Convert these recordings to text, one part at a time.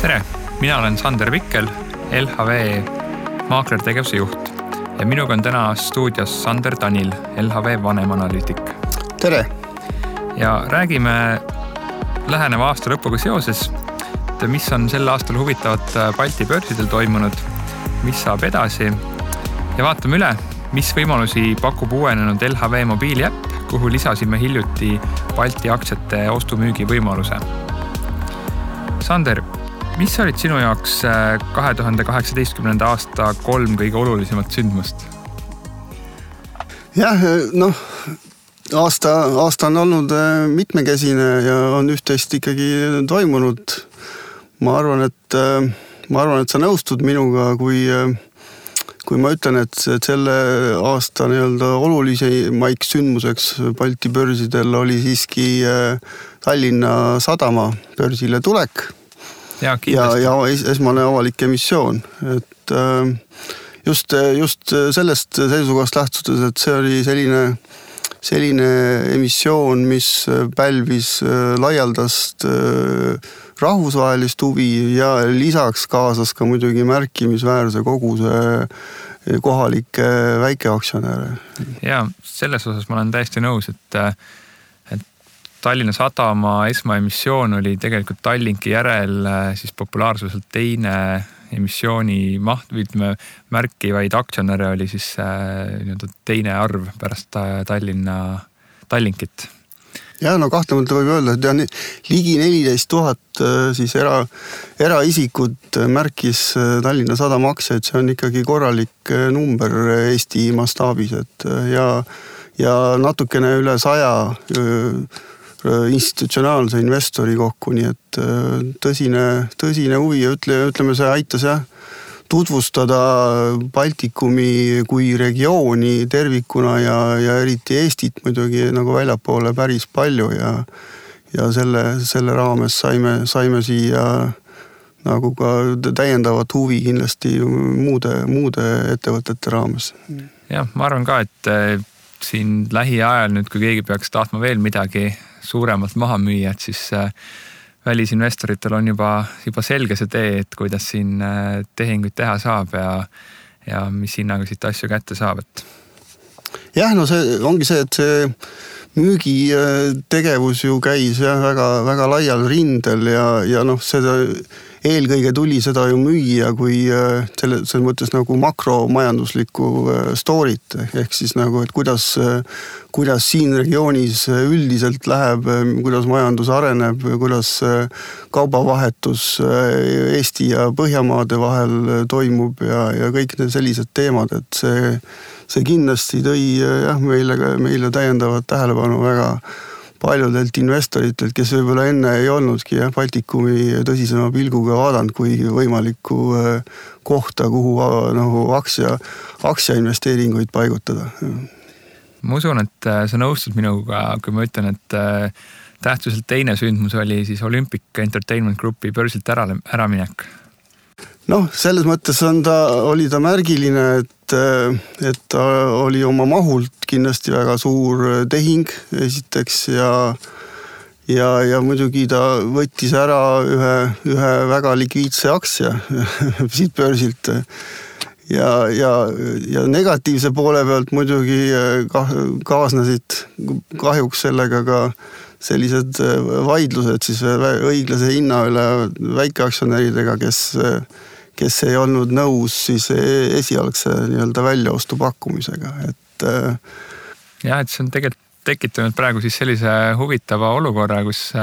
Tere, mina olen Sander Vikkel, LHV maaklertegevuse juht ja minuga on täna stuudios Sander Tanil, LHV vanemanalüütik. Tere! Ja räägime läheneva aasta lõpuga seoses, mis on sel aastal huvitavat Balti börsidel toimunud, mis saab edasi ja vaatame üle, mis võimalusi pakub uuenenud LHV mobiiliäpp, kuhu lisasime hiljuti Balti aktsiate ostu-müügi võimaluse. Sander, mis olid sinu jaoks 2018. aasta 3 kõige olulisemat sündmust? Jah, aasta on olnud mitmekesine ja on üht-teist ikkagi toimunud. Ma arvan, et sa nõustud minuga, kui ma ütlen, et selle aasta olulisemaiks sündmuseks Balti börsidel oli siiski Tallinna Sadama börsile tulek. Ja esmane avalik emissioon. Et just sellest seisukohast lähtudes, et see oli selline emissioon, mis pälvis laialdast rahvusvahelist huvi ja lisaks kaasas ka muidugi märkimisväärse koguse kohalikke väikeaktsionäre. Ja selles osas ma olen täiesti nõus, et Tallinna Sadama esmaemissioon oli tegelikult Tallinki järel siis populaarsuselt teine emissiooni maht, ütleme märkivaid aktsionäre oli siis teine arv pärast Tallinkit. Ja kahtlemata võib öelda, et ligi 14,000 siis eraisikut märkis Tallinna Sadama aktsiaid, see on ikkagi korralik number Eesti mastaabis, et ja natukene üle 100 institutsionaalse investori kokku, nii et tõsine huvi ja ütleme, see aitas tutvustada Baltikumi kui regiooni tervikuna ja eriti Eestit muidugi nagu väljapoole päris palju ja selle raames saime siia nagu ka täiendavat huvi kindlasti muude ettevõtete raames. Jah, ma arvan ka, et siin lähiajal nüüd, kui keegi peaks tahtma veel midagi suuremalt maha müüa, et siis välisinvestoritel on juba selge see tee, et kuidas siin tehinguid teha saab ja mis hinnaga siit asju kätte saab. Jah, see ongi see, et see müügitegevus ju käis väga, väga laial rindel ja seda eelkõige tuli seda ju müüa kui selles mõttes nagu makromajanduslikku story't, ehk siis nagu, et kuidas siin regioonis üldiselt läheb, kuidas majandus areneb, kuidas kaubavahetus Eesti ja Põhjamaade vahel toimub ja kõik need sellised teemad, et see kindlasti tõi meile täiendavat tähelepanu väga paljudelt investoritelt, kes võib-olla enne ei olnudki Baltikumi tõsisema pilguga vaadanud kui võimalikku kohta, kuhu aktsia investeeringuid paigutada. Ma usun, et sa nõustud minuga, kui ma ütlen, et tähtsuselt teine sündmus oli siis Olympic Entertainment Groupi börsilt äraminek. Selles mõttes oli ta märgiline, et ta oli oma mahult kindlasti väga suur tehing esiteks ja muidugi ta võttis ära ühe väga likviidse aktsia siit börsilt ja negatiivse poole pealt muidugi kaasnesid kahjuks sellega ka sellised vaidlused siis õiglase hinna üle väikeaktsionäridega, kes ei olnud nõus siis esialgse väljaostu pakkumisega. Et see on tegelikult tekitanud praegu siis sellise huvitava olukorra, kus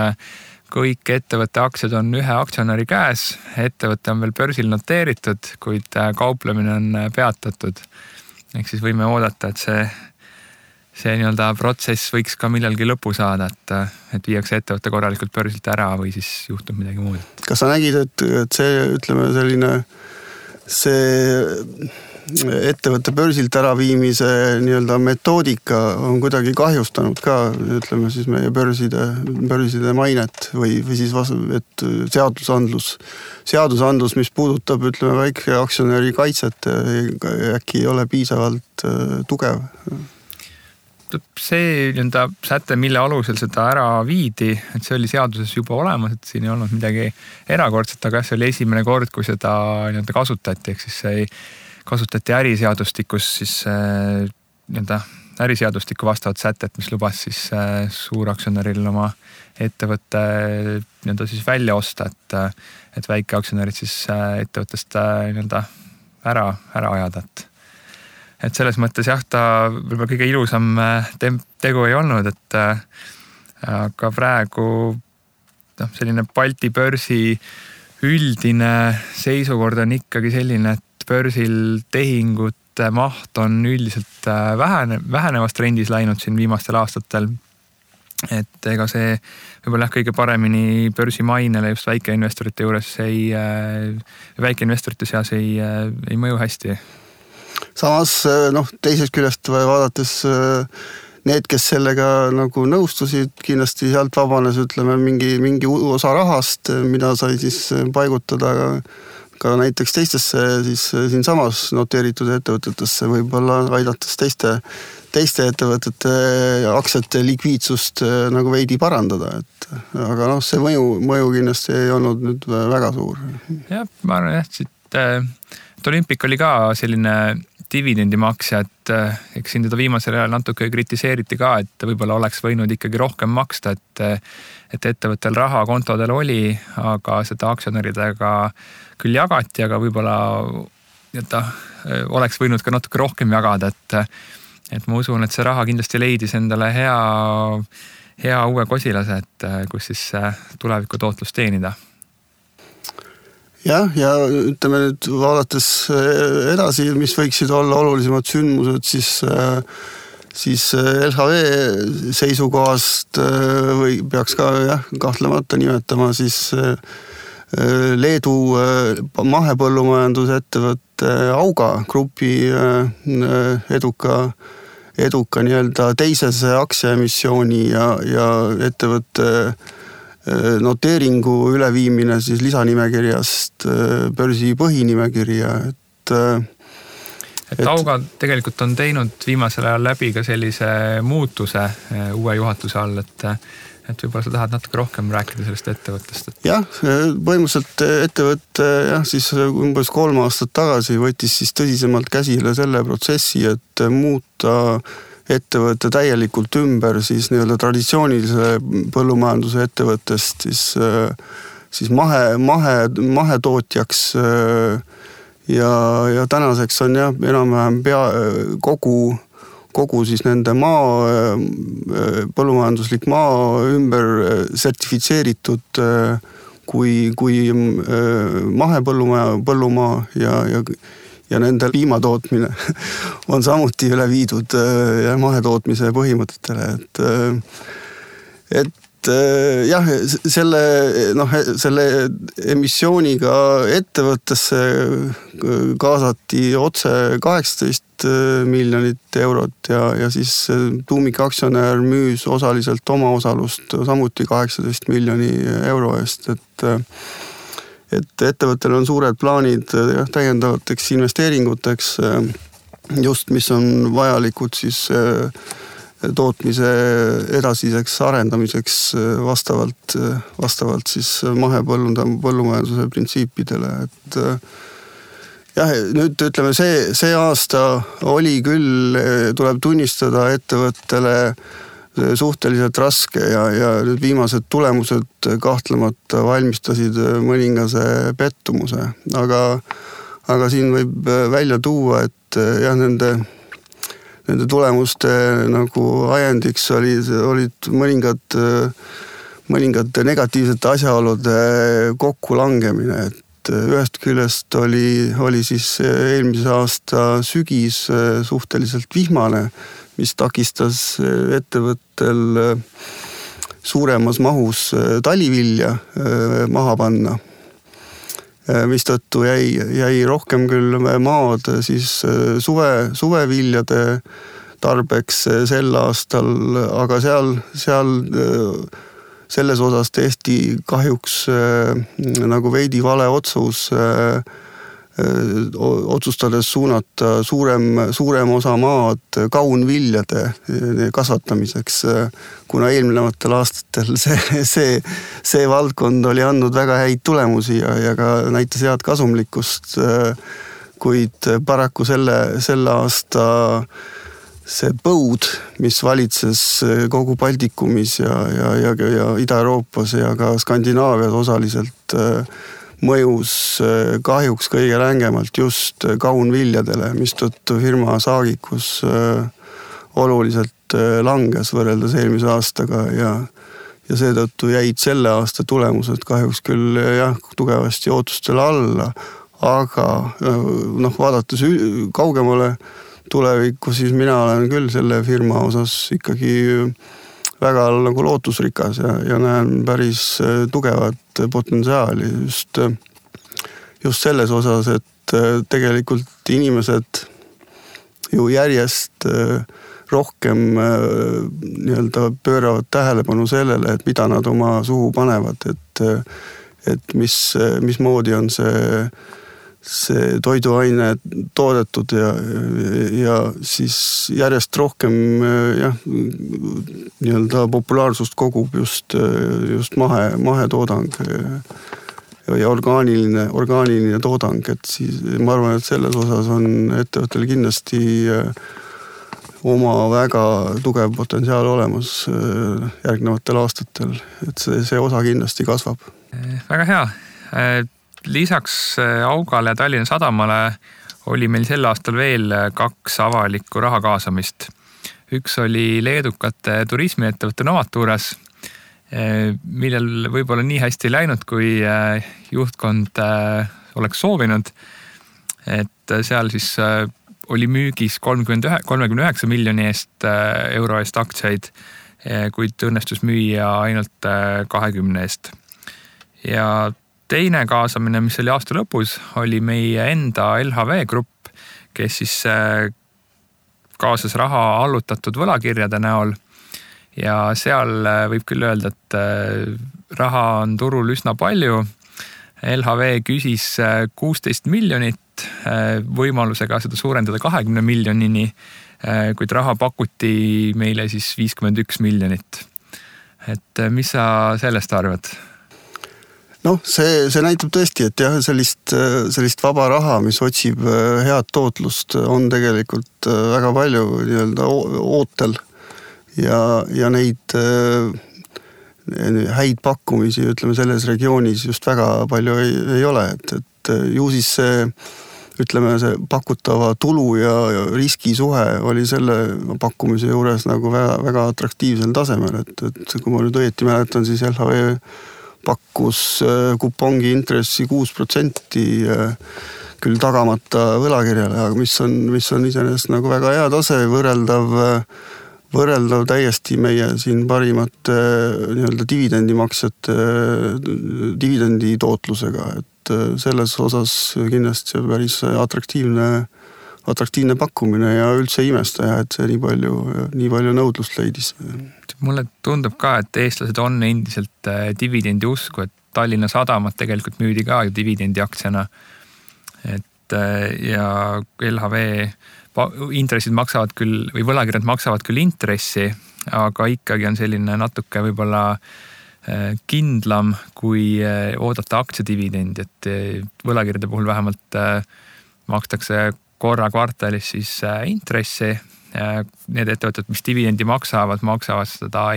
kõik ettevõtte aktsiad on ühe aktsionäri käes, ettevõte on veel börsil noteeritud, kuid kauplemine on peatatud. Ehk siis võime oodata, et see protsess võiks ka millalgi lõpu saada, et viiakse ettevõtte korralikult börsilt ära või siis juhtub midagi muud. Kas sa nägid, et see, ütleme, see ettevõtte börsilt äraviimise metoodika on kuidagi kahjustanud ka, ütleme siis meie börside mainet või siis et seadusandlus, mis puudutab, ütleme, väike aktsionäri kaitset, äkki ei ole piisavalt tugev. see säte, mille alusel seda ära viidi, et see oli seaduses juba olemas, et siin ei olnud midagi erakordset, aga see oli esimene kord, kui seda kasutati, ehk siis see kasutati äriseadustikus siis äriseadustiku vastavat sätet, mis lubas siis suuraktsionäril oma ettevõtte siis välja osta, et väikeaktsionärid siis ettevõttest ära ajada. Et selles mõttes jah, ta võib-olla kõige ilusam tegu ei olnud, et aga praegu selline Balti börsi üldine seisukord on ikkagi selline, et börsil tehingute maht on üldiselt vähenevas trendis läinud siin viimastel aastatel. Et ega see võib-olla kõige paremini börsi mainele just väikeinvestorite juures väikeinvestorite seas ei mõju hästi. Samas teisest küljest vaadates need, kes sellega nagu nõustusid, kindlasti sealt vabanes mingi osa rahast, mida sai siis paigutada ka näiteks teistesse siis siinsamas noteeritud ettevõtetesse, võib-olla aidates teiste ettevõtete aktsiate likviidsust nagu veidi parandada, aga see mõju kindlasti ei olnud nüüd väga suur. Jah, ma arvan et Olympic oli ka selline dividendimaksja, et eks siin teda viimasel ajal natuke kritiseeriti ka, et võib-olla oleks võinud ikkagi rohkem maksta, et ettevõttel raha kontodel oli, aga seda aktsionäridega küll jagati, aga võib-olla oleks võinud ka natuke rohkem jagada, et ma usun, et see raha kindlasti leidis endale hea uue kosilase, et kus siis tuleviku tootlust teenida. Jah, ja ütleme nüüd vaadates edasi, mis võiksid olla olulisemad sündmused, siis LHV seisukohast või peaks ka kahtlemata nimetama siis Leedu mahepõllumajandusettevõtte Auga grupi eduka nii-öelda teisese aktsiaemissiooni ja ettevõtte noteeringu üleviimine siis lisanimekirjast börsi põhinimekirja, et Auga tegelikult on teinud viimasel ajal läbi ka sellise muutuse uue juhatuse all, et võib-olla sa tahad natuke rohkem rääkida sellest ettevõttest. Jah, põhimõtteliselt ettevõtte siis umbes 3 aastat tagasi võttis siis tõsisemalt käsile selle protsessi, et muuta ettevõtte täielikult ümber siis nii-öelda traditsioonilise põllumajanduse ettevõttest siis mahetootjaks ja tänaseks on enam-vähem kogu siis nende põllumajanduslik maa ümber sertifitseeritud kui mahepõllumaa ja nende piimatootmine on samuti üle viidud mahetootmise põhimõtetele, et jah, selle emissiooniga ettevõttesse kaasati otse 18 miljonit eurot ja siis tuumikaktsionär müüs osaliselt oma osalust samuti 18 miljoni euro eest, et ettevõttel on suured plaanid täiendavateks investeeringuteks, just mis on vajalikud siis tootmise edasiseks arendamiseks vastavalt siis mahepõllumajanduse printsiipidele, et jah, nüüd ütleme, see aasta oli küll, tuleb tunnistada ettevõttele suhteliselt raske ja nüüd viimased tulemused kahtlemata valmistasid mõningase pettumuse, aga siin võib välja tuua, et jah, nende tulemuste nagu ajendiks olid mõningad negatiivsete asjaolude kokkulangemine, et ühest küljest oli siis eelmise aasta sügis suhteliselt vihmane, mis takistas ettevõttel suuremas mahus talivilja maha panna, mistõttu jäi rohkem küll maad siis suveviljade tarbeks sel aastal, aga seal selles osas tehti kahjuks nagu veidi vale otsus otsustades suunata suurem osa maad kaunviljade kasvatamiseks, kuna eelnevatel aastatel see valdkond oli andnud väga häid tulemusi ja ka näitas head kasumlikkust, kuid paraku selle aasta see põud, mis valitses kogu Baltikumis ja Ida-Euroopas ja ka Skandinaavias osaliselt, mõjus kahjuks kõige rängemalt just kaunviljadele, mistõttu firma saagikus oluliselt langes võrreldes eelmise aastaga ja seetõttu jäid selle aasta tulemused kahjuks küll tugevasti ootustele alla, aga vaadates kaugemale tulevikku, siis mina olen küll selle firma osas ikkagi väga nagu lootusrikas ja näen päris tugevat potentsiaali just selles osas, et tegelikult inimesed ju järjest rohkem nii-öelda pööravad tähelepanu sellele, et mida nad oma suhu panevad, et mismoodi on see toiduaine toodetud ja siis järjest rohkem nii-öelda populaarsust kogub just mahetoodang ja orgaaniline toodang, et siis ma arvan, et selles osas on ettevõttel kindlasti oma väga tugev potentsiaal olemas järgnevatel aastatel, et see osa kindlasti kasvab. Väga hea. Lisaks Augale ja Tallinna Sadamale oli meil sel aastal veel 2 avalikku raha kaasamist. Üks oli leedukate turismiettevõtte Novaturas, millel võib-olla nii hästi läinud, kui juhtkond oleks soovinud. Et seal siis oli müügis 39 miljoni euro eest aktsiaid, kuid õnnestus müüa ainult 20 eest. Ja teine kaasamine, mis oli aasta lõpus, oli meie enda LHV grupp, kes siis kaasas raha allutatud võlakirjade näol ja seal võib küll öelda, et raha on turul üsna palju. LHV küsis 16 miljonit võimalusega seda suurendada 20 miljonini, kuid raha pakuti meile siis 51 miljonit. Et mis sa sellest arvad? See näitab tõesti, et sellist vaba raha, mis otsib head tootlust, on tegelikult väga palju nii-öelda ootel ja neid häid pakkumisi, ütleme, selles regioonis just väga palju ei ole, et ju siis see pakutava tulu ja riskisuhe oli selle pakkumise juures nagu väga atraktiivsel tasemel, et kui ma nüüd õieti mäletan, siis LHV pakkus kupongi intressi 6% küll tagamata võlakirjale, aga mis on iseenesest nagu väga hea tase, võrreldav täiesti meie siin parimate nii-öelda dividendimaksjate dividendi tootlusega, et selles osas kindlasti see päris atraktiivne pakkumine ja üldse imestaja, et see nii palju nõudlust leidis. Mulle tundub ka, et eestlased on endiselt dividendi usku, et Tallinna Sadamat tegelikult müüdi ka dividendi aktsiana. Ja LHV intressid maksavad küll, või võlakirjad maksavad küll intressi, aga ikkagi on selline natuke võib-olla kindlam, kui oodata aktsiadividendi, et võlakirjade puhul vähemalt makstakse korra kvartalis siis intressi. Need ettevõtted, mis dividendi maksavad seda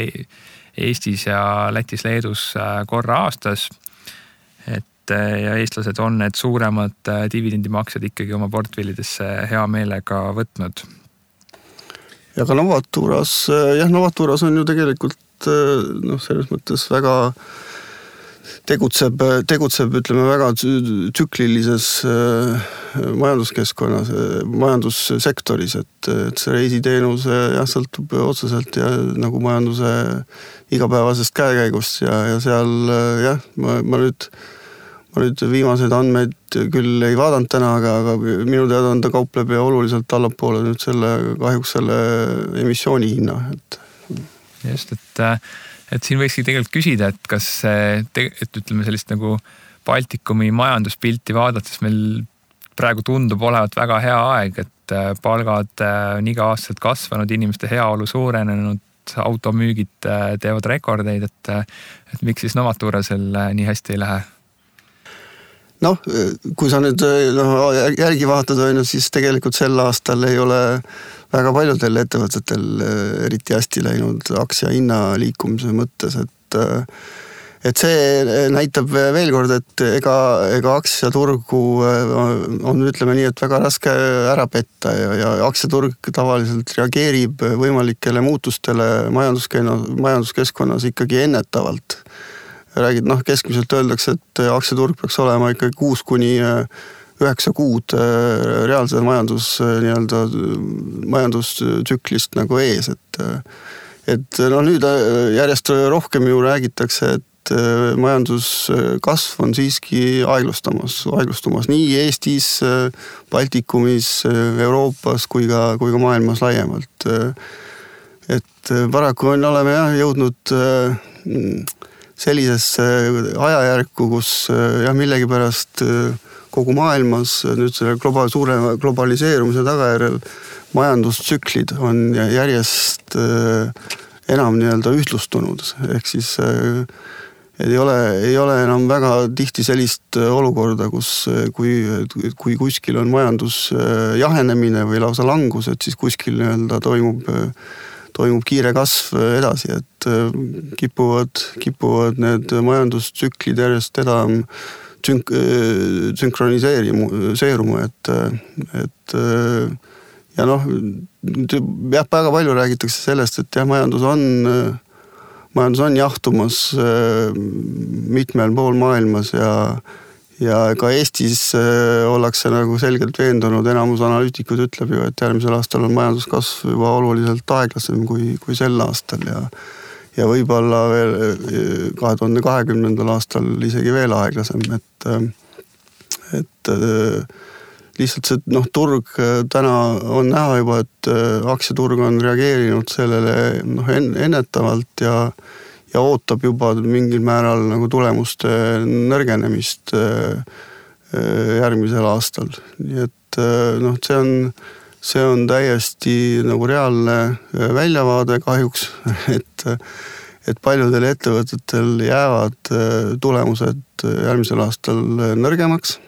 Eestis ja Lätis, Leedus korra aastas. Ja eestlased on need suuremad dividendimaksed ikkagi oma portfellidesse hea meelega võtnud. Ja ka Novaturas on ju tegelikult selles mõttes väga tegutseb ütleme väga tsüklilises majanduskeskkonnas, majandussektoris, et see reisiteenus sõltub otseselt ja nagu majanduse igapäevasest käekäigust ja seal ma nüüd viimased andmeid küll ei vaadanud täna, aga minu teada on ta kaupleb ja oluliselt allapoole nüüd kahjuks selle emissiooni hinna. Just, et siin võikski tegelikult küsida, et kas ütleme sellist nagu Baltikumi majanduspilti vaadates meil praegu tundub olevat väga hea aeg, et palgad on iga aastaselt kasvanud, inimeste heaolu suurenenud, automüügid teevad rekordeid, et miks siis Novaturasel nii hästi ei lähe? Noh, kui sa nüüd järgi vaatad, siis tegelikult sel aastal ei ole väga paljudel ettevõtetel eriti hästi läinud aktsia hinna liikumise mõttes, et see näitab veel kord, et ega aktsiaturgu on, ütleme nii, et väga raske ära petta ja aktsiaturg tavaliselt reageerib võimalikele muutustele majanduskeskkonnas ikkagi ennetavalt. Räägid, keskmiselt öeldakse, et aktsiaturg peaks olema ikkagi 6-9 kuud reaalse majandustsüklist nagu ees, et nüüd järjest rohkem ju räägitakse, et majanduskasv on siiski aeglustumas nii Eestis, Baltikumis, Euroopas kui ka maailmas laiemalt. Et paraku oleme jõudnud sellisesse ajajärku, kus millegipärast kogu maailmas nüüd selle suure globaliseerumise tagajärjel majandustsüklid on järjest enam ühtlustunud, ehk siis ei ole enam väga tihti sellist olukorda, kus kui kuskil on majandus jahenemine või lausa langus, et siis kuskil toimub kiire kasv edasi, et kipuvad need majandustsüklid järjest enam sünkroniseeruma, et ja väga palju räägitakse sellest, et majandus on jahtumas mitmel pool maailmas ja ka Eestis ollakse nagu selgelt veendunud, enamus analüütikud ütleb ju, et järgmisel aastal on majanduskasv juba oluliselt aeglasem kui sel aastal ja võib-olla veel 2020. aastal isegi veel aeglasem, et lihtsalt see turg täna on näha juba, et aktsiaturg on reageerinud sellele ennetavalt ja ootab juba mingil määral nagu tulemuste nõrgenemist järgmisel aastal. Nii et see on täiesti nagu reaalne väljavaade kahjuks, et paljudel ettevõtetel jäävad tulemused järgmisel aastal nõrgemaks.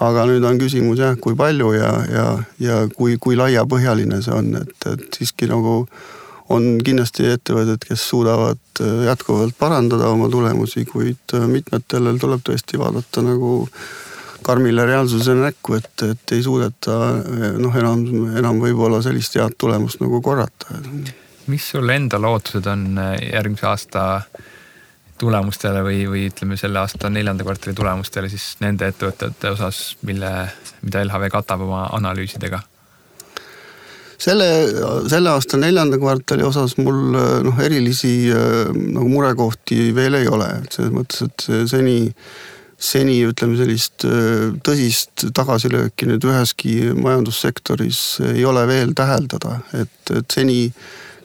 Aga nüüd on küsimus kui palju ja kui laiapõhjaline see on, et siiski nagu on kindlasti ettevõtted, kes suudavad jätkuvalt parandada oma tulemusi, kuid mitmetele tuleb tõesti vaadata nagu karmile reaalsuse näkku, et ei suudeta enam võib-olla sellist head tulemust nagu korrata. Mis sul enda lootused on järgmise aasta tulemustele või ütleme selle aasta 4. kvartali tulemustele siis nende ettevõtete osas, mida LHV katab oma analüüsidega? Selle aasta 4. kvartali osas mul erilisi nagu murekohti veel ei ole. Selles mõttes, et seni ütleme sellist tõsist tagasilööki nüüd üheski majandussektoris ei ole veel täheldada, et seni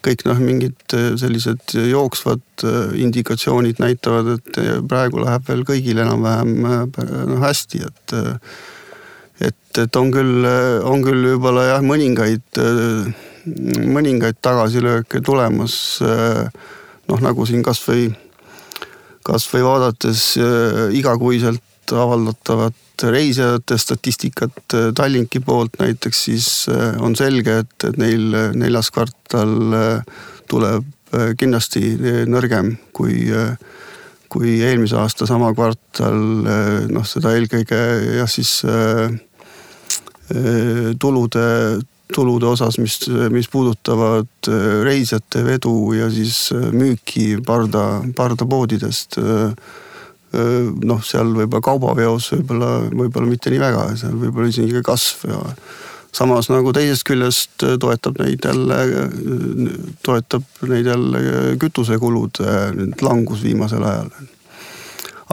kõik mingid sellised jooksvad indikatsioonid näitavad, et praegu läheb veel kõigil enam-vähem hästi, et on küll võib-olla mõningaid tagasilööke tulemas, nagu siin kas või vaadates igakuiselt avaldatavat reisijate statistikat Tallinki poolt näiteks, siis on selge, et neil 4. kvartal tuleb kindlasti nõrgem kui eelmise aasta sama kvartal, seda eelkõige siis tulude osas, mis puudutavad reisijate vedu ja siis müüki pardapoodidest. Seal võib-olla kaubaveos võib-olla mitte nii väga, seal võib-olla isegi kasv ja samas nagu teisest küljest toetab neid jälle kütusekulud langus viimasel ajal.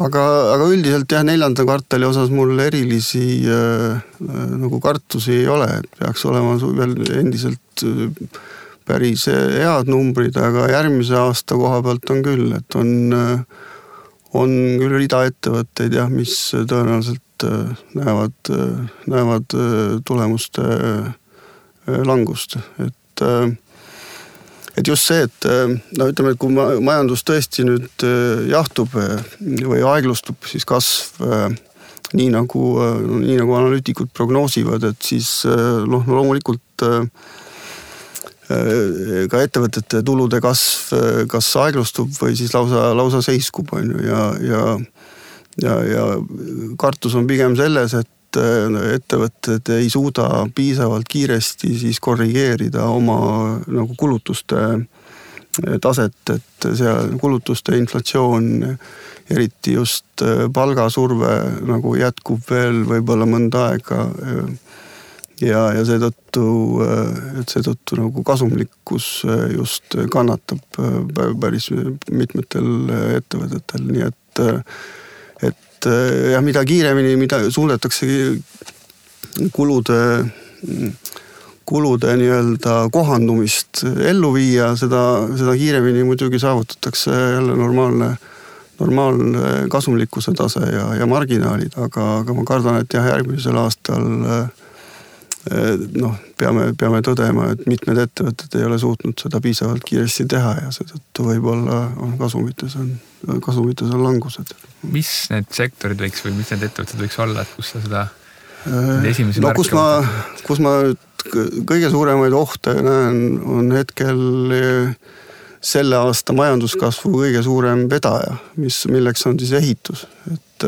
Aga üldiselt 4. kvartali osas mul erilisi nagu kartusi ei ole, et peaks olema veel endiselt päris head numbrid, aga järgmise aasta koha pealt on küll, et on küll rida ettevõtteid, mis tõenäoliselt näevad tulemuste langust, et just see, et no ütleme, et kui majandus tõesti nüüd jahtub või aeglustub, siis kasv nii nagu analüütikud prognoosivad, et siis loomulikult ka ettevõtete tulude kasv kas aeglustub või siis lausa seiskub, on ju, ja kartus on pigem selles, et ettevõtted ei suuda piisavalt kiiresti siis korrigeerida oma nagu kulutuste taset, et seal kulutuste inflatsioon, eriti just palgasurve nagu jätkub veel võib-olla mõnda aega ja seetõttu nagu kasumlikkus just kannatab päris mitmetel ettevõtetel, nii et mida kiiremini, mida suudetakse kulude nii-öelda kohandumist ellu viia, seda kiiremini muidugi saavutatakse jälle normaalne kasumlikkuse tase ja marginaalid, aga ma kardan, et jah, järgmisel aastal peame tõdema, et mitmed ettevõtted ei ole suutnud seda piisavalt kiiresti teha ja seetõttu võib-olla on kasumites on langused. Mis need sektorid võiks või mis need ettevõtted võiks olla, et kus sa seda esimesi märke kus ma kõige suuremaid ohte näen, on hetkel selle aasta majanduskasvu kõige suurem vedaja, milleks on siis ehitus, et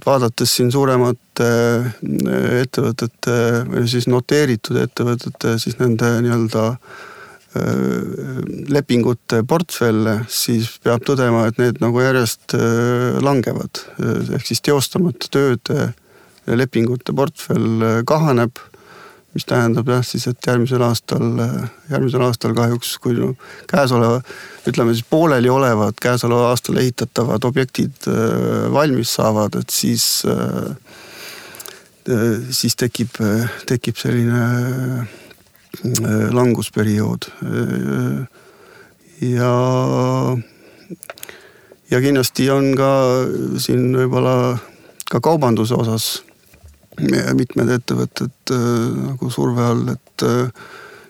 vaadates siin suuremate ettevõtete või siis noteeritud ettevõtete, siis nende nii-öelda lepingute portfelle, siis peab tõdema, et need nagu järjest langevad. Ehk siis teostamata tööde lepingute portfell kahaneb, mis tähendab jah siis, et järgmisel aastal kahjuks, kui käesoleva, ütleme siis pooleli olevad käesoleva aastal ehitatavad objektid valmis saavad, et siis tekib selline langusperiood. Ja kindlasti on ka siin võib-olla ka kaubanduse osas mitmed ettevõtted nagu surve all, et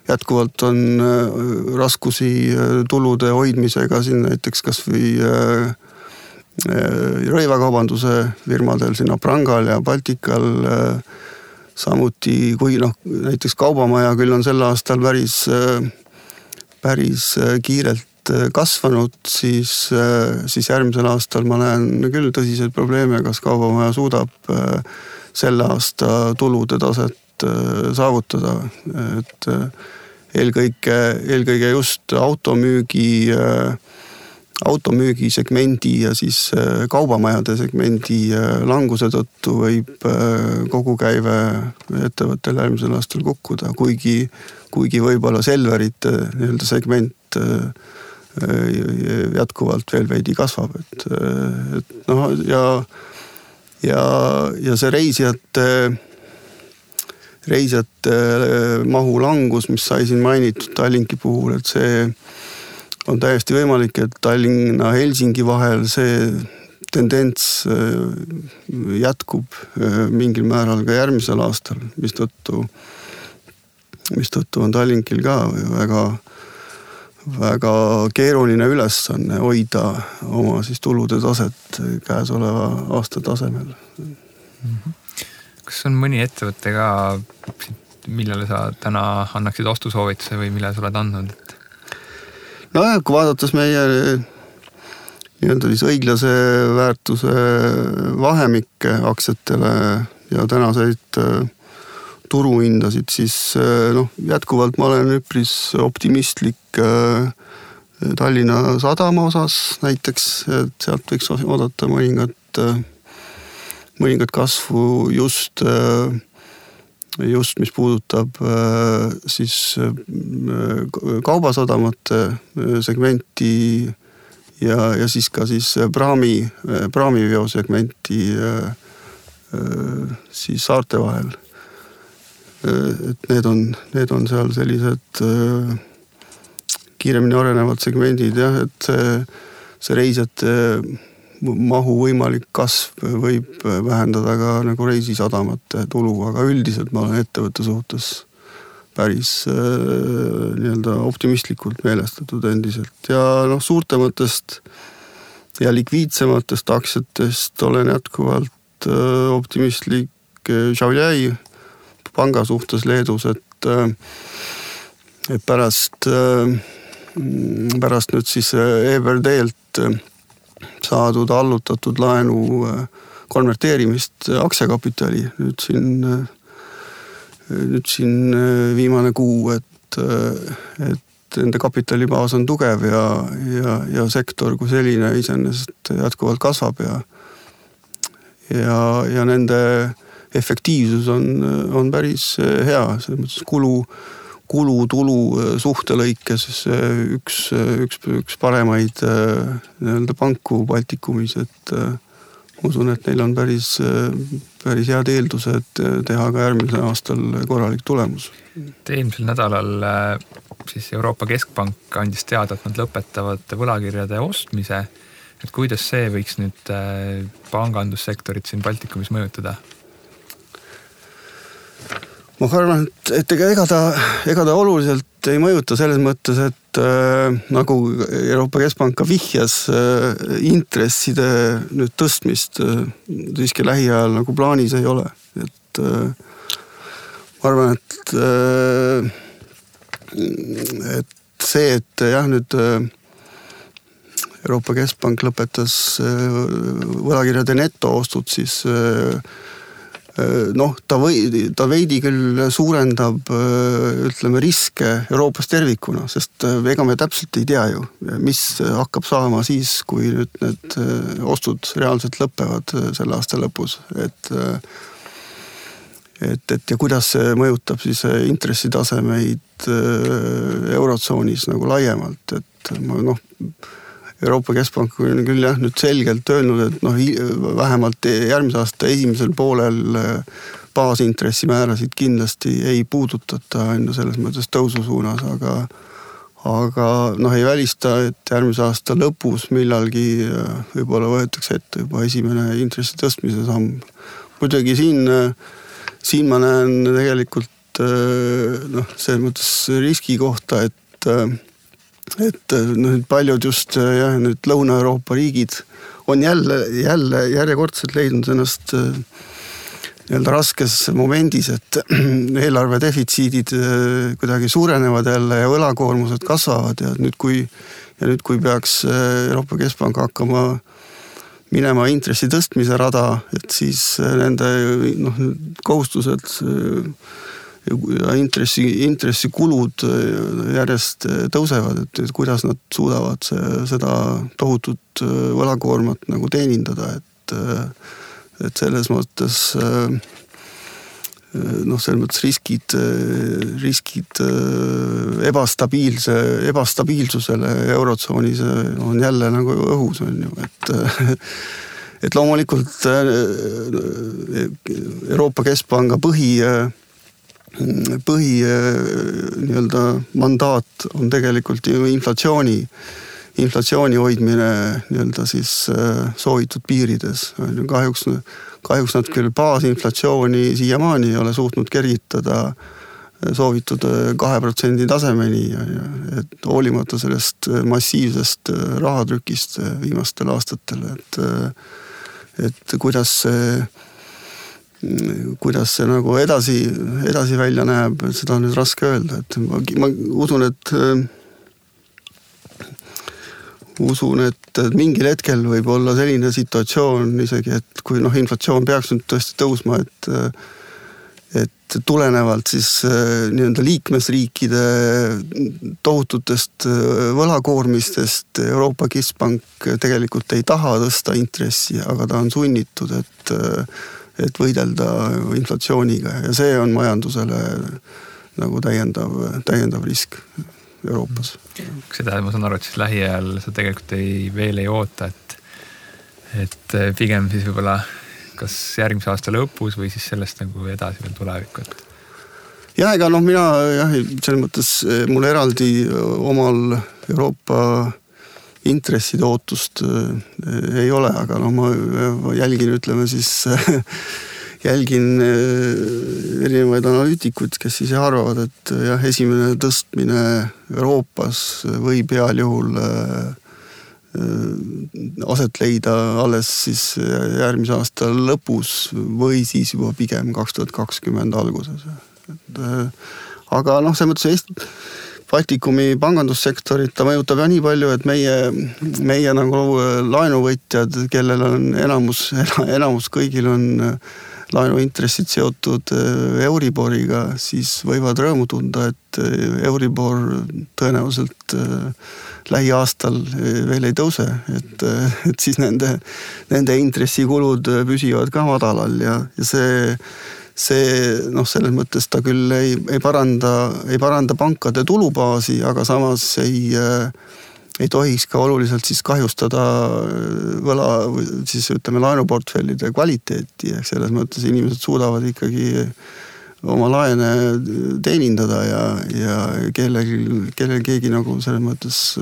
jätkuvalt on raskusi tulude hoidmisega siin näiteks kas või rõivakaubanduse firmadel siin Prangal ja Baltikal, samuti kui näiteks Kaubamaja küll on sel aastal päris kiirelt kasvanud, siis järgmisel aastal ma näen küll tõsiseid probleeme, kas Kaubamaja suudab selle aasta tulude taset saavutada, et eelkõige just automüügi segmendi ja siis kaubamajade segmendi languse tõttu võib kogukäive ettevõttel järgmisel aastal kukkuda, kuigi võib-olla Selverite nii-öelda segment jätkuvalt veel veidi kasvab, et ja see reisijate mahu langus, mis sai siin mainitud Tallinki puhul, et see on täiesti võimalik, et Tallinna-Helsingi vahel see tendents jätkub mingil määral ka järgmisel aastal, mistõttu on Tallinkil ka väga keeruline ülesanne hoida oma siis tulude taset käesoleva aasta tasemel. Kas on mõni ettevõte ka, millele sa täna annaksid ostusoovituse või mille sa oled andnud? Kui vaadates meie nii-öelda siis õiglase väärtuse vahemikke aktsiatele ja tänaseid turuhindasid, siis jätkuvalt ma olen üpris optimistlik Tallinna Sadama osas näiteks, et sealt võiks oodata mõningat kasvu just mis puudutab siis kaubasadamate segmenti ja siis ka siis praamiveo segmenti siis saarte vahel. Et need on seal sellised kiiremini arenevad segmendid, jah, et see reisijate mahu võimalik kasv võib vähendada ka nagu reisisadamate tulu, aga üldiselt ma olen ettevõtte suhtes päris nii-öelda optimistlikult meelestatud endiselt ja suurtematest ja likviidsematest aktsiatest olen jätkuvalt optimistlik Šiauliai panga suhtes Leedus, et pärast nüüd siis EBRD-lt saadud allutatud laenu konverteerimist aktsiakapitali nüüd siin viimane kuu, et nende kapitalibaas on tugev ja sektor kui selline iseenesest jätkuvalt kasvab ja nende efektiivsus on päris hea, selles mõttes kulu-tulu suhtelõikes üks paremaid nii-öelda panku Baltikumis, et usun, et neil on päris head eeldused teha ka järgmisel aastal korralik tulemus. Eelmisel nädalal siis Euroopa Keskpank andis teada, et nad lõpetavad võlakirjade ostmise. Et kuidas see võiks nüüd pangandussektorit siin Baltikumis mõjutada? Ma arvan, et ega ta oluliselt ei mõjuta selles mõttes, et nagu Euroopa Keskpank ka vihjas intresside nüüd tõstmist siiski lähiajal nagu plaanis ei ole. Et ma arvan, et see, et jah, nüüd Euroopa Keskpank lõpetas võlakirjade netoostud, siis ta veidi küll suurendab ütleme riske Euroopas tervikuna, sest ega me täpselt ei tea ju, mis hakkab saama siis, kui nüüd need ostud reaalselt lõppevad selle aasta lõpus, et ja kuidas see mõjutab siis intressitasemeid eurotsoonis nagu laiemalt, et Euroopa Keskpank on küll jah nüüd selgelt öelnud, et vähemalt järgmise aasta esimesel poolel baasintressimäärasid kindlasti ei puudutata selles mõttes tõusu suunas, aga ei välista, et järgmise aasta lõpus millalgi võib-olla võetakse ette juba esimene intressi tõstmise samm. Muidugi siin ma näen tegelikult selles mõttes riski kohta, et paljud just nüüd Lõuna-Euroopa riigid on jälle järjekordselt leidnud ennast nii-öelda raskes momendis, et eelarve defitsiidid kuidagi suurenevad jälle ja võlakoormused kasvavad ja nüüd kui peaks Euroopa Keskpank hakkama minema intressi tõstmise rada, et siis nende kohustused ja intressikulud järjest tõusevad, et kuidas nad suudavad seda tohutut võlakoormat nagu teenindada, et selles mõttes selles mõttes riskid ebastabiilsusele eurotsoonis on jälle nagu õhus on ju, et loomulikult Euroopa Keskpanga põhi nii-öelda mandaat on tegelikult ju inflatsiooni hoidmine nii-öelda siis soovitud piirides. Kahjuks nad küll baasinflatsiooni siiamaani ei ole suutnud kergitada soovitud 2% tasemeni, et hoolimata sellest massiivsest rahatrükist viimastel aastatel, et kuidas see nagu edasi välja näeb, seda on nüüd raske öelda, et ma usun, et mingil hetkel võib olla selline situatsioon isegi, et kui inflatsioon peaks nüüd tõesti tõusma, et tulenevalt siis nii-öelda liikmesriikide tohututest võlakoormistest Euroopa Keskpank tegelikult ei taha tõsta intressi, aga ta on sunnitud, et võidelda inflatsiooniga ja see on majandusele nagu täiendav risk Euroopas. Seda ma saan aru, et siis lähiajal sa tegelikult veel ei oota, et pigem siis võib-olla kas järgmise aasta lõpus või siis sellest nagu edasi veel tulevikku? Ja ega mina selles mõttes mul eraldi omal Euroopa intresside ootust ei ole, aga ma jälgin, ütleme siis, jälgin erinevaid analüütikuid, kes siis arvavad, et jah, esimene tõstmine Euroopas võib heal juhul aset leida alles siis järgmise aasta lõpus või siis juba pigem 2020 alguses. Aga selles mõttes Baltikumi pangandussektorit ta mõjutab ja nii palju, et meie nagu laenuvõtjad, kellel on enamus kõigil on laenuintressid seotud Euriboriga, siis võivad rõõmu tunda, et Euribor tõenäoliselt lähiaastal veel ei tõuse, et siis nende intressikulud püsivad ka madalal ja see selles mõttes ta küll ei paranda pankade tulubaasi, aga samas ei tohiks ka oluliselt siis kahjustada siis ütleme laenuportfellide kvaliteeti, ehk selles mõttes inimesed suudavad ikkagi oma laene teenindada ja kellel keegi nagu selles mõttes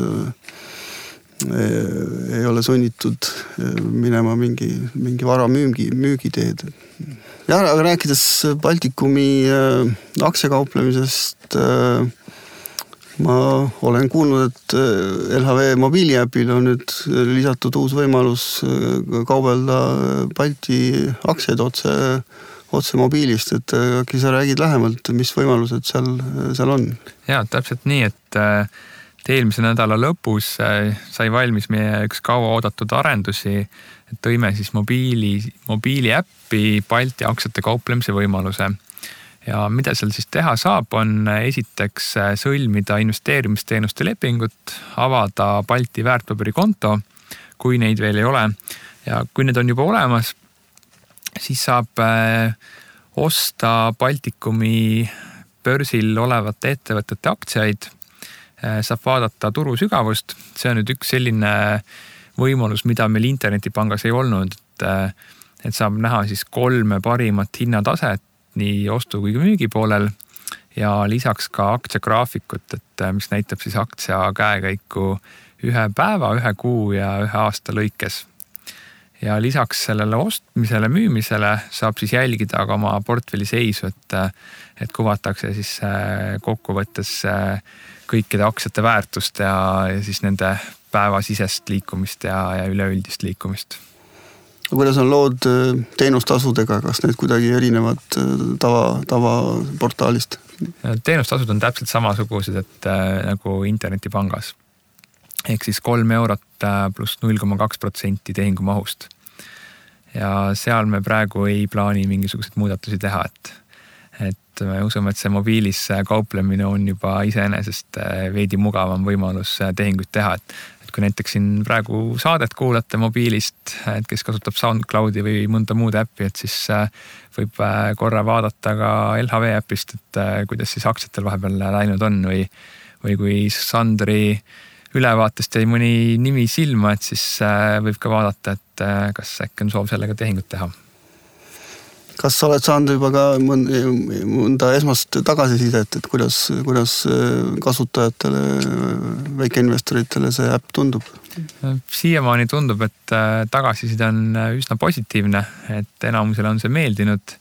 ei ole sunnitud minema mingi vara müügiteed. Ja, aga rääkides Baltikumi aktsiakauplemisest, ma olen kuulnud, et LHV mobiiliäpil on nüüd lisatud uus võimalus kaubelda Balti aktsiaid otse mobiilist, et äkki sa räägid lähemalt, mis võimalused seal on? Ja, täpselt nii, et eelmise nädala lõpus sai valmis meie üks kaua oodatud arendusi, et tõime siis mobiiliäppi Balti aktsiate kauplemise võimaluse. Ja mida seal siis teha saab, on esiteks sõlmida investeerimisteenuste lepingut, avada Balti väärtpaberikonto, kui neid veel ei ole. Ja kui need on juba olemas, siis saab osta Baltikumi börsil olevate ettevõtete aktsiaid, saab vaadata turu sügavust. See on nüüd üks selline võimalus, mida meil internetipangas ei olnud, et saab näha siis 3 parimat hinnataset nii ostu kui müügi poolel ja lisaks ka aktsiagraafikut, et mis näitab siis aktsia käekäiku 1 päeva, 1 kuu ja 1 aasta lõikes. Ja lisaks sellele ostmisele, müümisele saab siis jälgida ka oma portfelli seisu, et kuvatakse siis kokkuvõttes kõikide aktsiate väärtust ja siis nende päevasisest liikumist ja üleüldist liikumist. Kuidas on lood teenustasudega, kas need kuidagi erinevad tavaportaalist? Teenustasud on täpselt samasugused, et nagu internetipangas. Ehk siis 3 eurot pluss 0,2% tehingumahust. Ja seal me praegu ei plaani mingisuguseid muudatusi teha, et me usume, et see mobiilis kauplemine on juba iseenesest veidi mugavam võimalus tehinguid teha, et kui näiteks siin praegu saadet kuulate mobiilist, et kes kasutab SoundCloudi või mõnda muud äppi, et siis võib korra vaadata ka LHV äpist, et kuidas siis aktsiatel vahepeal läinud on või kui Sandri ülevaatest jäi mõni nimi silma, et siis võib ka vaadata, et kas äkki on soov sellega tehingut teha. Kas sa oled saanud juba ka mõnda esmast tagasisidet, et kuidas kasutajatele, väikeinvestoritele see äpp tundub? Siiamaani tundub, et tagasiside on üsna positiivne, et enamusele on see meeldinud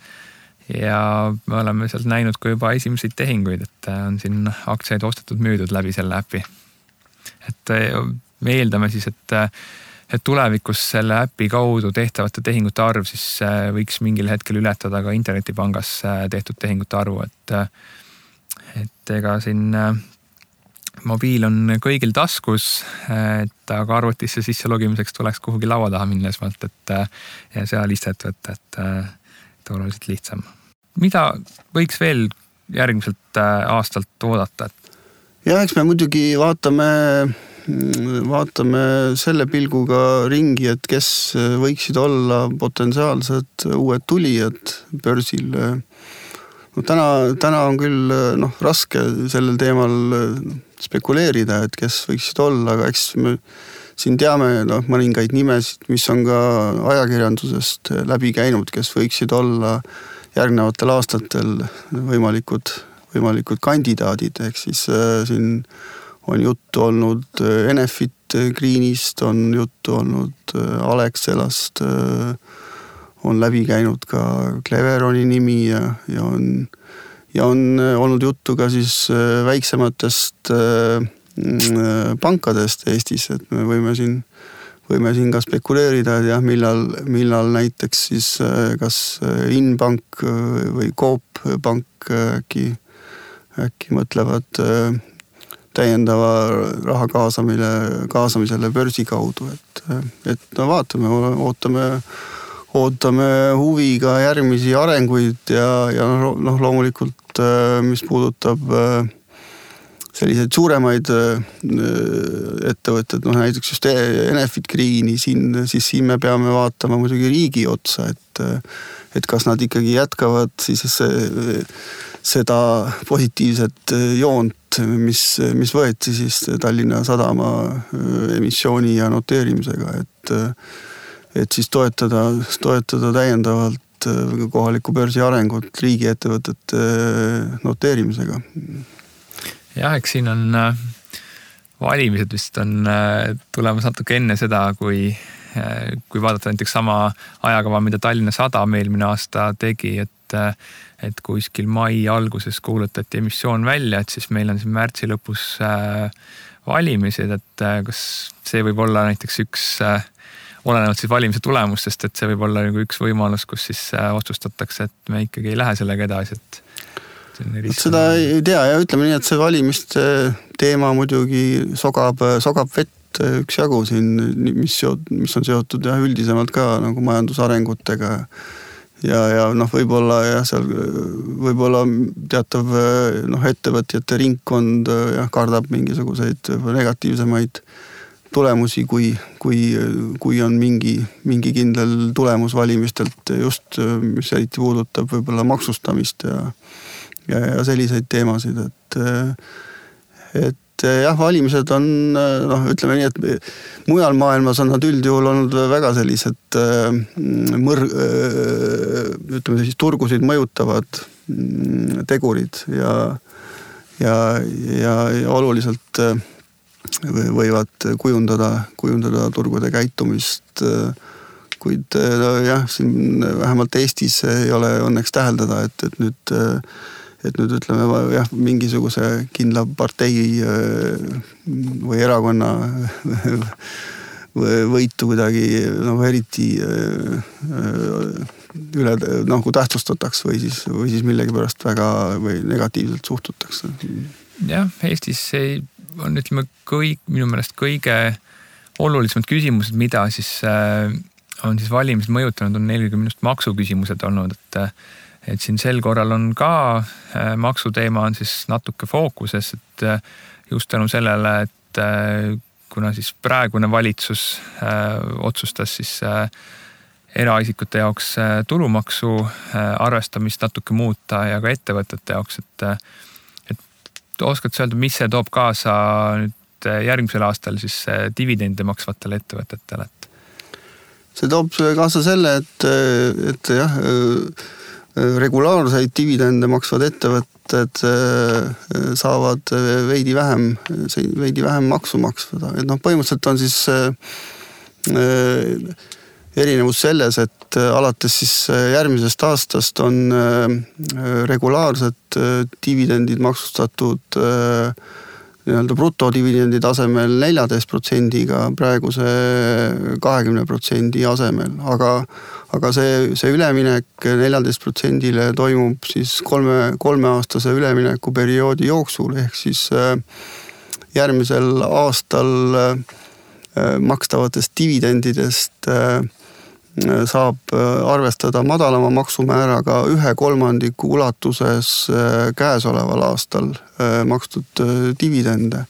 ja me oleme sealt näinud ka juba esimseid tehinguid, et on siin aktsiaid ostetud müüdud läbi selle äpi. Et me eeldame siis, et tulevikus selle äpi kaudu tehtavate tehingute arv siis võiks mingil hetkel ületada ka internetipangas tehtud tehingute arvu, et ega siin mobiil on kõigil taskus, et aga arvutisse sisse logimiseks tuleks kuhugi laua taha minna esmalt, ja seal istet võtta, et oluliselt lihtsam. Mida võiks veel järgmiselt aastalt oodata? Ja eks me muidugi vaatame selle pilguga ringi, et kes võiksid olla potentsiaalsed uued tulijad börsil. Täna on küll raske sellel teemal spekuleerida, et kes võiksid olla, aga eks me siin teame mõningaid nimesid, mis on ka ajakirjandusest läbi käinud, kes võiksid olla järgnevatel aastatel võimalikud kandidaadid, ehk siis siin on juttu olnud Enefit Greenist on juttu olnud, Alexelast on läbi käinud ka Cleveroni nimi ja on olnud juttu ka siis väiksematest pankadest Eestis, et me võime siin ka spekuleerida, et jah, millal näiteks siis kas Inbank või Coop Pank äkki mõtlevad täiendava raha kaasamisele börsi kaudu, et no vaatame, ootame huviga järgmisi arenguid ja noh, loomulikult mis puudutab selliseid suuremaid ettevõtted, noh näiteks just Enefit Greeni, siis siin me peame vaatama muidugi riigi otsa, et kas nad ikkagi jätkavad siis seda positiivset joont, mis võeti siis Tallinna Sadama emissiooni ja noteerimisega, et siis toetada täiendavalt kohaliku börsi arengut riigiettevõtete noteerimisega. Jah, eks siin on valimised vist on tulemas natuke enne seda, kui vaadata näiteks sama ajakava, mida Tallinna Sadam eelmine aasta tegi, et kuskil mai alguses kuulutati emissioon välja, et siis meil on siin märtsi lõpus valimised, et kas see võib olla näiteks üks, olenevalt siis valimise tulemustest, et see võib olla nagu üks võimalus, kus siis otsustatakse, et me ikkagi ei lähe sellega edasi, et seda ei tea ja ütleme nii, et see valimiste teema muidugi sogab vett üksjagu siin, mis on seotud ja üldisemalt ka nagu majandusarengutega ja noh, võib-olla teatav ettevõtjate ringkond kardab mingisuguseid negatiivsemaid tulemusi, kui on mingi kindel tulemus valimistelt just, mis eriti puudutab võib-olla maksustamist ja selliseid teemasid, et jah, valimised on, ütleme nii, et mujal maailmas on nad üldjuhul olnud väga sellised ütleme siis turgusid mõjutavad tegurid ja oluliselt võivad kujundada turgude käitumist, kuid jah, siin vähemalt Eestis ei ole õnneks täheldada, et nüüd ütleme jah, mingisuguse kindla partei või erakonna võitu kuidagi eriti üle kui tähtsustataks või siis millegipärast väga või negatiivselt suhtutakse. Jah, Eestis on ütleme minu meelest kõige olulisemad küsimused, mida siis on siis valimised mõjutanud, on eelkõige minust maksuküsimused olnud, et siin sel korral on ka maksuteema on siis natuke fookuses, et just tänu sellele, et kuna siis praegune valitsus otsustas siis eraisikute jaoks tulumaksu arvestamist natuke muuta ja ka ettevõtete jaoks, et oskad sa öelda, mis see toob kaasa nüüd järgmisel aastal siis dividende maksvatele ettevõtetele? See toob kaasa selle, et jah, regulaarseid dividende maksvad ettevõtted saavad veidi vähem maksu maksvada. Et põhimõtteliselt on siis erinevus selles, et alates siis järgmisest aastast on regulaarsed dividendid maksustatud nii-öelda brutodividendi tasemel 14%-ga praeguse 20% asemel, aga see üleminek 14%-le toimub siis kolmeaastase üleminekuperioodi jooksul, ehk siis järgmisel aastal makstavatest dividendidest saab arvestada madalama maksumääraga 1/3 ulatuses käesoleval aastal makstud dividende.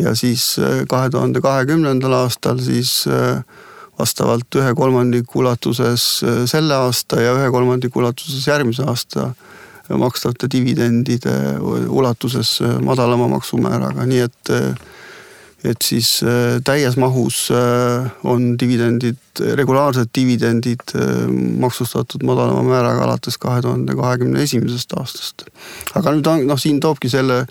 Ja siis 2020. aastal siis vastavalt 1/3 ulatuses selle aasta ja 1/3 ulatuses järgmise aasta makstavate dividendide ulatuses madalama maksumääraga. Nii et siis täies mahus on regulaarsed dividendid maksustatud madalama määraga alates 2021. aastast. Aga nüüd siin toobki selle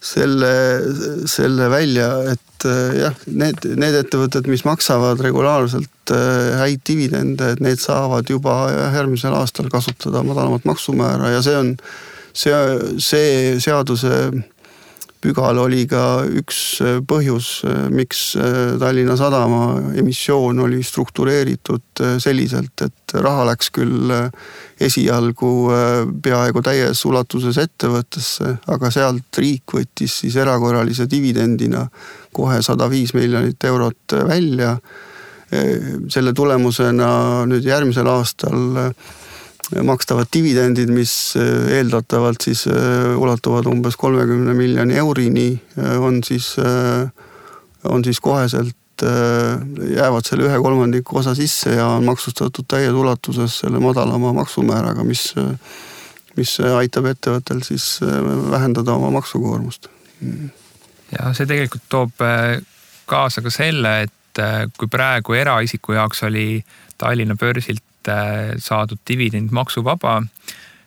selle välja, et jah, need ettevõtted, mis maksavad regulaarselt häid dividende, et need saavad juba järgmisel aastal kasutada madalamat maksumäära ja see seaduse pügal oli ka üks põhjus, miks Tallinna Sadama emissioon oli struktureeritud selliselt, et raha läks küll esialgu peaaegu täies ulatuses ettevõttesse, aga sealt riik võttis siis erakorralise dividendina kohe 105 miljonit eurot välja. Selle tulemusena nüüd järgmisel aastal makstavad dividendid, mis eeldatavalt siis ulatuvad umbes 30 miljoni eurini, on siis koheselt jäävad selle 1/3 osa sisse ja on maksustatud täies ulatuses selle madalama maksumääraga, mis aitab ettevõttel siis vähendada oma maksukoormust. Ja see tegelikult toob kaasa ka selle, et kui praegu eraisiku jaoks oli Tallinna börsilt saadud dividend maksuvaba,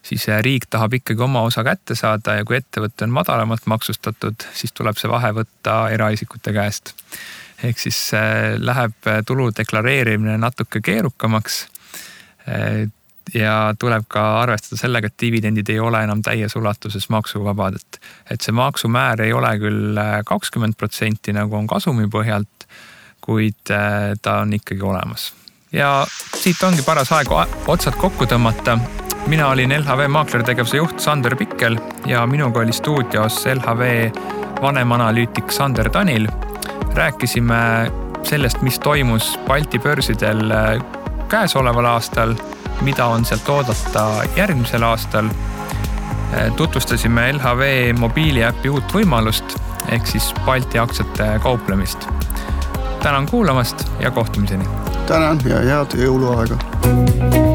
siis riik tahab ikkagi oma osa kätte saada ja kui ettevõte on madalamalt maksustatud, siis tuleb see vahe võtta eraisikute käest. Ehk siis läheb tulu deklareerimine natuke keerukamaks ja tuleb ka arvestada sellega, et dividendid ei ole enam täies ulatuses maksuvabad. Et see maksumäär ei ole küll 20% nagu on kasumi põhjalt, kuid ta on ikkagi olemas. Ja siit ongi paras aeg otsad kokku tõmmata. Mina olin LHV maaklertegevuse juht Sander Pikkel ja minuga oli stuudios LHV vanemanalüütik Sander Tanil. Rääkisime sellest, mis toimus Balti börsidel käesoleval aastal, mida on sealt oodata järgmisel aastal. Tutvustasime LHV mobiiliäpi uut võimalust ehk siis Balti aktsiate kauplemist. Tänan kuulamast ja kohtumiseni. Tänan ja head jõuluaega.